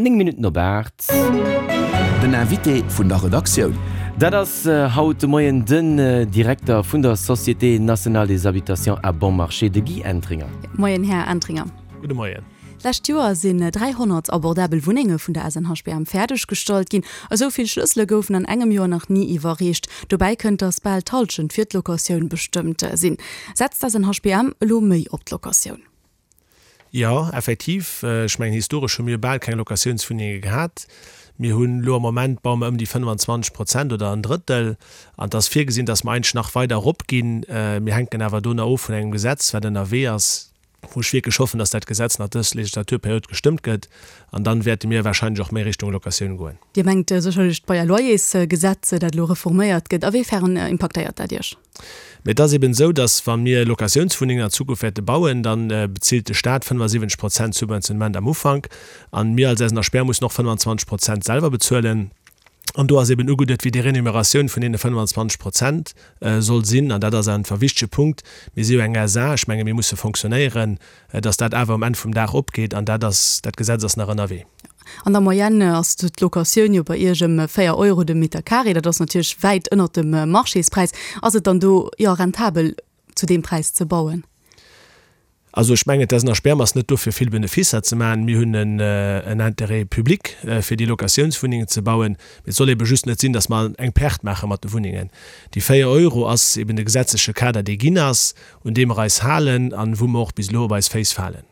9 Minutten op 8. Den Invité vun der Redaktioun. Dat ass haut de Moien den Direkter vun der Société nationale des habitations à bon marché, de Guy Entringer. Moien, Här Entringer. Gudde Moien. D'lescht Joer sinn 300 abordabel Wunnenge vun der SNHBM fäerdeg gestallt ginn. Esou vill Schlëssele goufen an engem Joer nach ni iwwerreecht. Dobäi kënnt, datt bal d'Hallschent fir d'Locatioun bestëmmt sinn. Setzt d'SNHBM elo méi op d'Locatioun? Jo, effektiv. Ech mengen, historesch hu mir bal keng Locatiounswunnenge gehat. Mir hunn elo am Moment, baue mer ëm déi 25 Prozent oder en Drëttel. An et ass virgesinn, datt mer eigentlech nach weider eropginn. Mir hänken awer do nach of vun engem Gesetz, wat ënnerwee ass, wou ech wierklech hoffen, datt dat Gesetz nach dës Legislaturperiod gestëmmt gëtt. An dann wäerte mir wahrscheinlech och méi Richtung Locatioun goen. Dir mengt sécherlech d'Bail-à-loyers-Gesetz, dat elo reforméiert gëtt. A wéi fern impaktéiert dat Iech? Mee et ass eben esou, datt wa mir Locatiounswunnengen an Zukunft wäerte bauen, da bezilt de Staat 75 Prozent Subventionnement am Ufank an mir als SNHBR mussen och 25 Prozent selwer bezuelen. An do ass eben ugeduet, wéi déi Renumeratioun vun deene 25 Prozent soll sinn. An dat ass einfach e wichtege Punkt. Mir si jo eng SA, ech menge mir musse fonctionnéieren, datt dat awer um Enn vum Dag opgeet. An dat ass, dat Gesetz ass nach ënnerwee. An der Moyenne ass d'Locatioun jo bei Iech ëm 4 Euro de Meter carré. Dat ass natierlech wäit ënnert dem Marchéspräis. Ass et dann do jo rentabel zu deem Präis ze bauen? Also ech mengen, d'SNHBM ass net do fir vill Beneficer ze maachen. Mir hunn en Intérêt public fir déi Locatiounswunnengen ze bauen. Mee et soll ebe just net sinn, datt mer eng Perte maache mat de Wunnengen. Déi 4 Euro ass eben de gesetzleche Kader, dee ginn ass, un dee mer eis halen an wou mer och bis elo op eis Féiss falen.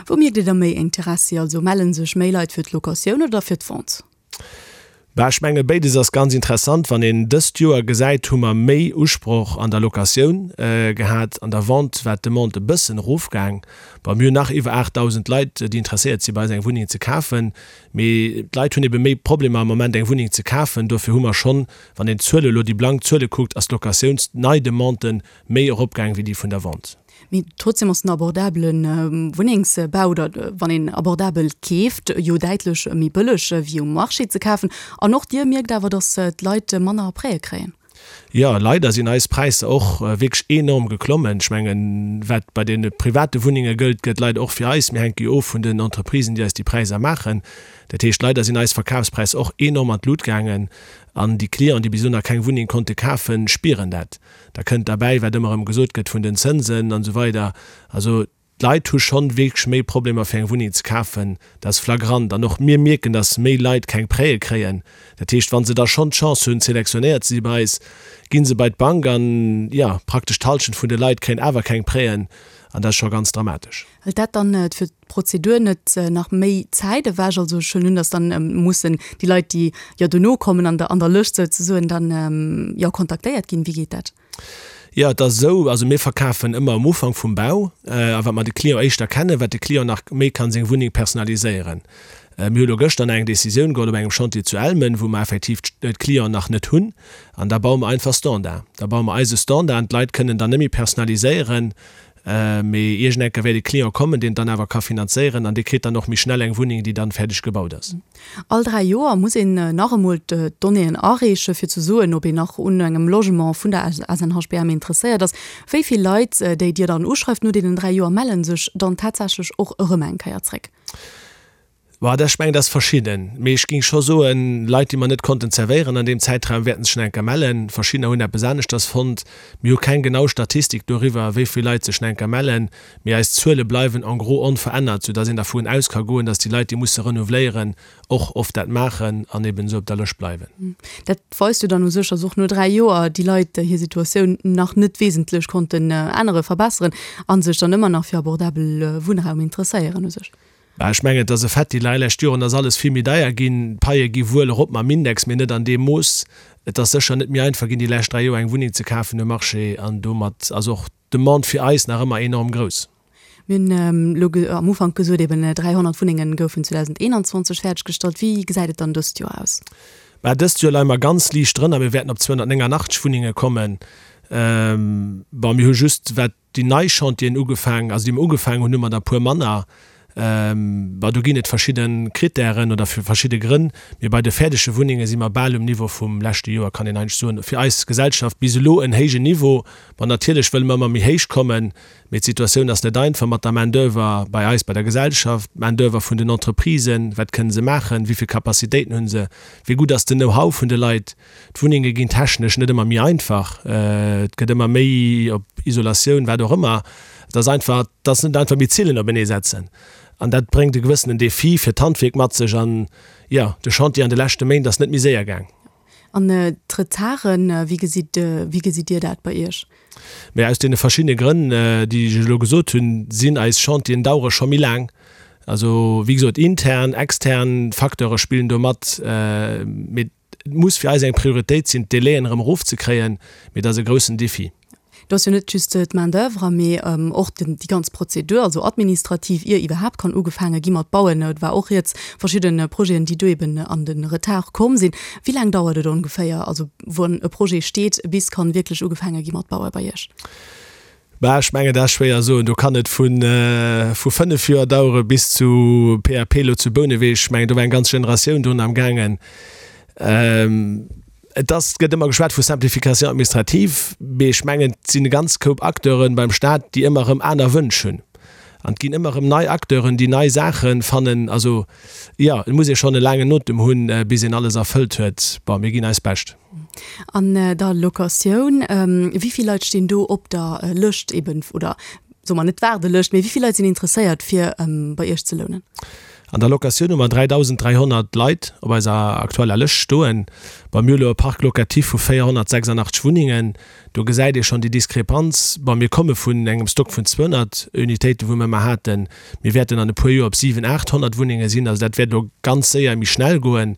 Wou mierkt Dir da méi Interessi? Also melle sech méi Leit fir d'Locatioun oder fir d'Vente? Bah, ech menge béides ass ganz interessant. Wann een dëst Joer gesäit, hu mer méi Usproch an der Locatioun gehat. An der Vente war d'Demande e bëssen erofgaang. Bon, mir hunn nach iwwer 8.000 Leit, déi interesséiert si bei eis eng Wunneng ze kafen. Mee d'Leit hunn ebe méi Problemer am Moment eng Wunneng ze kafen. Dofir hu mer schonn, wann een d'Zuele elo, déi blank Zuele kuckt, ass d'Locatiouns-Neidemande méi eropgaang wéi déi vun der Vente. Mee trotzdem ass den abordabele Wunnengsbau, oder wann een abordabel keeft, jo däitlech méi bëlleg wéi um Marché ze kafen. An och Dir mierkt awer, datt d'Leit manner Prêtë kréien. Jo, leider sinn eis Präisser och wierklech enorm geklommen. Ech mengen, wat bei deene private Wunnenge gëllt, gëllt leider och fir eis. Mir hänke jo of vun den Entreprisen, déi eis déi Präisser maachen. Dat heescht, leider sinn eis Verkafspräisser och enorm an d'Lut gaangen. An déi Clienten, déi bis elo nach keng Wunneng konnte kafen, spieren dat. Da kënnt derbäi, wat ëmmer erëm gesot gëtt vun den Zënsen an esou weider. Also d'Leit hu schonn wierklech méi Problemer fir eng Wunneng ze kafen. Dat ass flagrant. An och mir mierken, datt méi Leit keng Prêtë kréien. Dat heescht, wa se da schonn d'Chance hunn, selektionéiert ze si bei eis, gi se bei d'Bank an, jo, praktesch d'Hallschent vun de Leit kréien awer keng Prêten. An dat ass scho ganz dramatesch. Hëlt dat dann fir d'Prozedur net nach méi Zäit ewech? Also ech huelen un, datt dann mussen déi Leit, déi jo dono kommen an der an der Lëscht souzesoen, dann jo kontaktéiert ginn. Wéi geet dat? Jo, et ass esou, also mir verkafen ëmmer am Ufank vum Bau a wat mer de Client éischter kennen, wat de Client nach méi kann seng Wunneng personaliséieren. Mir hu lo gëschter nach eng Décisioun geholl op engem Chantier zu Elmen, wou mer effektiv d'Clienten nach net hunn an da baue mer einfach Standard. Da baue mer eise Standard an d'Leit kënnen dann net méi personaliséieren. Mee iergend enker wäert e Client kommen, deen et dann awer ka finanzéieren an dee kritt dann och méi schnell eng Wunneng, déi dann fäerdeg gebaut ass. All 3 Joer muss een nach emol d'Donnéeën areeche fir ze soen, ob een nach un engem Logement vun der SNHBM interesséiert ass. Wéi vill Leit, déi Dir dann uschreift no deenen 3 Joer, melle sech dann tatsächlech och erëm eng Kéier zréck? Bah, dat, ech mengen, dat ass verschidden. Mee ech géing scho soen, Leit, déi mer net konnten zerwéieren an deem Zäitraum, wäerten sech nach eng Kéier mellen. Verschiddener hunn eppes aneschters fonnt. Mir hu keng genau Statistik doriwwer, wéi vill Leit sech nach eng Kéier mellen. Mee eis Zuele bleiwen en gros onverännert, soudass een dervun aus ka goen, dass déi Leit, déi musse renouveléieren, och oft dat maachen an eben esou op der Lëscht bleiwen. Dat weist jo dann u sech, dass och no 3 Joer déi Leit hir Situatioun nach net wesentlech konnten änneren, verbesseren a sech dann ëmmer nach fir abordabel Wunnraum interesséieren u sech. Bah, ech mengen, et ass e Fait, déi lei lescht Joren ass alles vill méi deier ginn. D'Paie gi wuel erop mam Index, mee net an deem Mooss. Et ass sécher net méi einfach ginn, déi lescht 3 Joer eng Wunneng ze kafen um Marché an domat ass och d'Demande fir eis nach ëmmer enorm grouss. Mir hunn elo am Ufank gesot, eben 300 Wunnenge goufen 2021 fäerdeggestallt. Wéi gesäit et dann dëst Joer aus? Bah, dëst Joer leie mer ganz liicht drënner. Mir wäerten op 289 Wunnenge kommen. Bon, mir hu just, wat déi nei Chantieren ugefaangen, also déi mer ugefaangen hunn, hu mer der e puer manner. Bon, do ginn et verschidde Krittären oder verschidde Grënn, mee bei de fäerdege Wunnenge si mer bal um Niveau vum leschte Joer, kann een eigentlech soen. Fir eis Gesellschaft bis elo en héijen Niveau. Bon, natierlech wëlle mer ëmmer méi héich kommen, mee d'Situatioun ass net einfach mat der Main d'oeuvre bei eis bei der Gesellschaft, d'Main d'oeuvre vun den Entreprisen, wat kënne se maachen, wéi vill Capacitéiten hu se, wéi gutt ass den Know-how vun de Leit. D'Wunnenge ginn technesch net ëmmer méi einfach, et gëtt ëmmer méi op Isolatioun, wat och ëmmer. Et ass einfach, et ass net einfach méi Zillen openee setzen. An dat bréngt e gewëssenen Defi fir d'Handwierk mat sech. An jo, de Chantier an de leschte Méint ass net méi séier gaang. An d'Retarden, wéi gesitt, wéi gesitt Dir dat bei Iech? Mä aus deene verschiddene Grënn, déi ech elo gesot hunn, sinn eis Chantieren dauere scho méi laang. Also, wéi gesot, intern, extern Facteure spillen do mat. Mee et muss fir eis eng Prioritéit sinn, d'Délaien erëm erofzekréien. Mee dat ass e groussen Défi. Do ass jo net just d'Main d'oeuvre, mee och déi ganz Prozedur, also administrativ, ier iwwerhaapt kann ugefaange gi mat bauen. Et war och rieds verschidde Projeten, déi do eben an de Retard komm sinn. Wéi laang dauert et ongeféier, also wann e Projet steet, bis kann wierklech ugefaange gi mat baue bei Iech? Bah, ech mengen, dat ass schwéier soen. Do kann et vu vu 5 Joer dauere bis zu PAP elo zu Bouneweg. Ech mengen, do war eng ganz Generatioun drun am gaangen. Et ass, et gëtt ëmmer geschwat vu Simplification administrative, mee ech mengen, et sinn e ganz Koup Acteure beim Staat, déi ëmmer erëm aner Wënsch hunn. An et ginn ëmmer erëm nei Acteuren, déi nei Saache fannen. Also, jo, et muss ee schonn e laangen Otem hunn, bis een alles erfëllt huet. Bon, mir ginn eist Bescht. An der Locatioun, wéi vill Leit stinn do op der Lëscht eben, oder soe mer net Waardelëscht, mee wéi vill Leit sinn interesséiert, fir bei Iech ze lounen? An der Locatioun hu mer 3.300 Leit op eiser aktueller Lëscht stoen. Bon, mir hu lo e Parc locatif vu 486 Wunnengen. Do gesäit ee schonn déi Diskrepanz. Bon, mir komme vun engem Stock vun 200 Unitéiten, wou mir ëmmer haten. Mir wäerten an e puer Joer op 700, 800 Wunnenge sinn. Also dat wäert elo ganz séier méi schnell goen.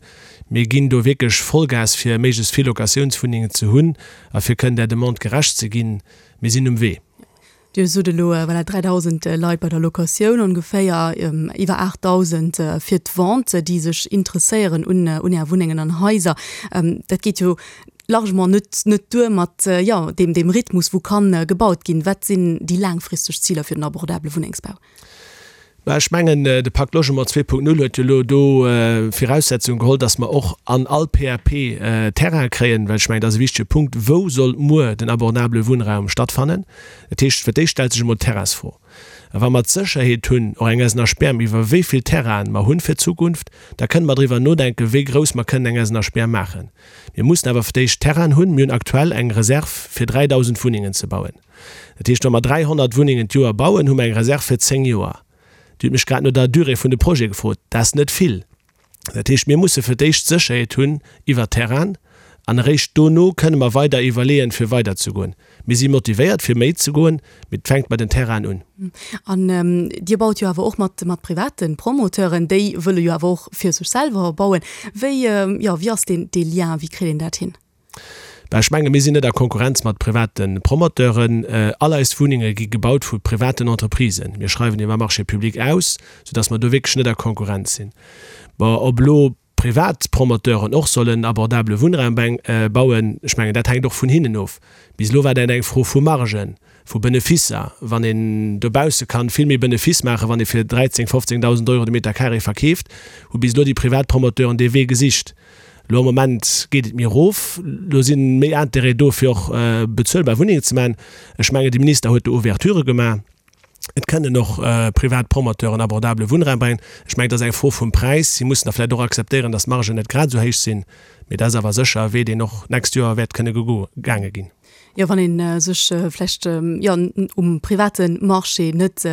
Mir ginn do wierklech Vollgas, fir méiglechst vill Locatiounswunnengen ze hunn a fir kënnen där Demande gerecht ze ginn. Mir sinn um Wee. Dir sot elo, voilà, 3.000 Leit bei der Locatioun ongeféier, iwwer 8.000 fir d'Vente, déi sech interesséieren un un Är Wunnengen an Haiser. Dat geet jo largement net net duer mat, jo, deem deem Rhythmus, wou kann gebaut ginn. Wat sinn déi laangfristeg Ziler fir den abordabele Wunnengsbau? Mä ech mengen, de Pacte Logement 2.0 huet jo elo do Viraussetzung geholl, dass mer och an all PAP Terraine kréien, well ech mengen, dat ass e wichtege Punkt, Wou soll muer den abordabele Wunnraum stattfannen? Dat heescht, fir d'éischt stellt sech emol d'Terrainsfro. A wa mer d'Sécherheet hunn, och eng SNHBM, iwwer wéi vill Terrainen mer hunn fir d'Zukunft, da kënne mer driwwer nodenken, wéi grouss mer kënnen eng SNHBM maachen. Mir mussen awer fir d'éischt Terrainen hunn. Mir hunn aktuell eng Reserv fir 3.000 Wunnengen ze bauen. Dat heescht, wa mer 300 Wunnengen d'Joer bauen, hu mer eng Reserv fir 10 Joer. Dir hutt mech grad no der Durée vun de Projete gefrot. Dat ass net vill. Dat heescht, mir musse fir d'éischt Sécherheet hunn iwwer Terrainen an eréischt dono kënne mer weider iwwerleeën, fir weiderzegoen. Mir si motivéiert, fir méi ze goen, mee et fänkt bei den Terrainen un. An Dir baut jo awer och mat, mat private Promoteuren, déi wëlle jo awer och fir sech selwer bauen. Wéi, jo, wéi ass deen, dee Lien, wéi kritt een dat hin? Bah, ech menge mir sinn net a Konkurrenz mat private Promoteuren. All eis Wunnenge gi gebaut vu privaten Entreprisen. Mir schreiwen iwwer Marché public aus, soudass mer do wierklech net a Konkurrenz sinn. Bon, ob elo privat Promoteuren och sollen abordabele Wunnraum bauen, ech mengen dat hänkt och vun hinnen of. Bis elo war dat eng Fro vu Margen, vu Benefisser. Wann een dobausse kann vill méi Benefiss maachen, wann ee fir 13, 15.000 Euro de Meter carré verkeeft, hu bis elo déi privat Promoteuren dee Wee gesicht. Elo am Moment geet et méi erof. Elo si méi Intérêt do, fir och bezuelbar Wunnengen ze maachen. Ech mengen, de Minister huet do Ouverturë gemaach. Et kënnen och privat Promoteuren abordabele Wunnraum bréngen. Ech mengen, et ass eng Fro vum Präis. Si mussen da vläicht och akzeptéieren, datt d'Margen net grad esou héich sinn. Mee dat ass awer sécher e Wee, deen och d'nächst Joer wäert kënne gegaange ginn. Jo, wann ee sech vläicht, jo, um private Marché net,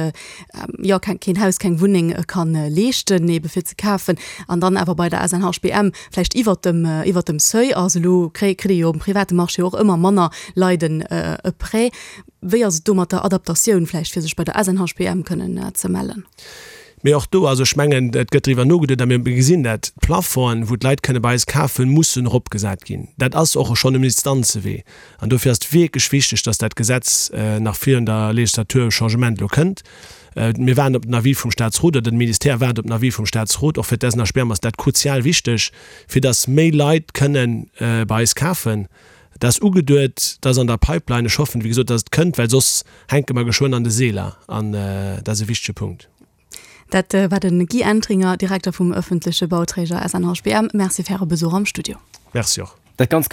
jo, keen Haus, keng Wunneng ka leeschten, ebe fir ze kafen, an dann awer bei der SNHBM vläicht iwwert dem, iwwert dem Seuil ass. Elo kritt ee jo um private Marché och ëmmer manner Leit en e Prêt. Wéi ass et do mat der Adaptatioun vläicht, fir sech bei der SNHBM kënnen ze mellen? Mee och do, also ech mengen, et gëtt driwwer nogeduet a mir gesinn dat, d'Plafongen, wou d'Leit kënne bei eis kafen, mussen eropgesat ginn. Dat ass och schonn um Instanzewee. An dofir ass et wierklech wichteg, dass dat Gesetz nach virun der Legislatur Changement elo kënnt. Mir waarden op den Avis vum Statsrot, oder de Ministère waart op den Avis vum Statsrot. Och fir d'SNHBM ass dat kruzial wichteg, fir dass méi Leit kënne bei eis kafen. Dat ass ugeduet, dat ass an der Pipeline. Ech hoffen, wéi gesot, dass et kënnt, well soss hänke mer geschwënn an de Seeler. An dat ass e wichtege Punkt. Dat war de Guy Entringer, Direkter vum ëffentleche Bauträger SNHBM. Merci fir Äre Besuch am Studio. Merci och. Dat ganz.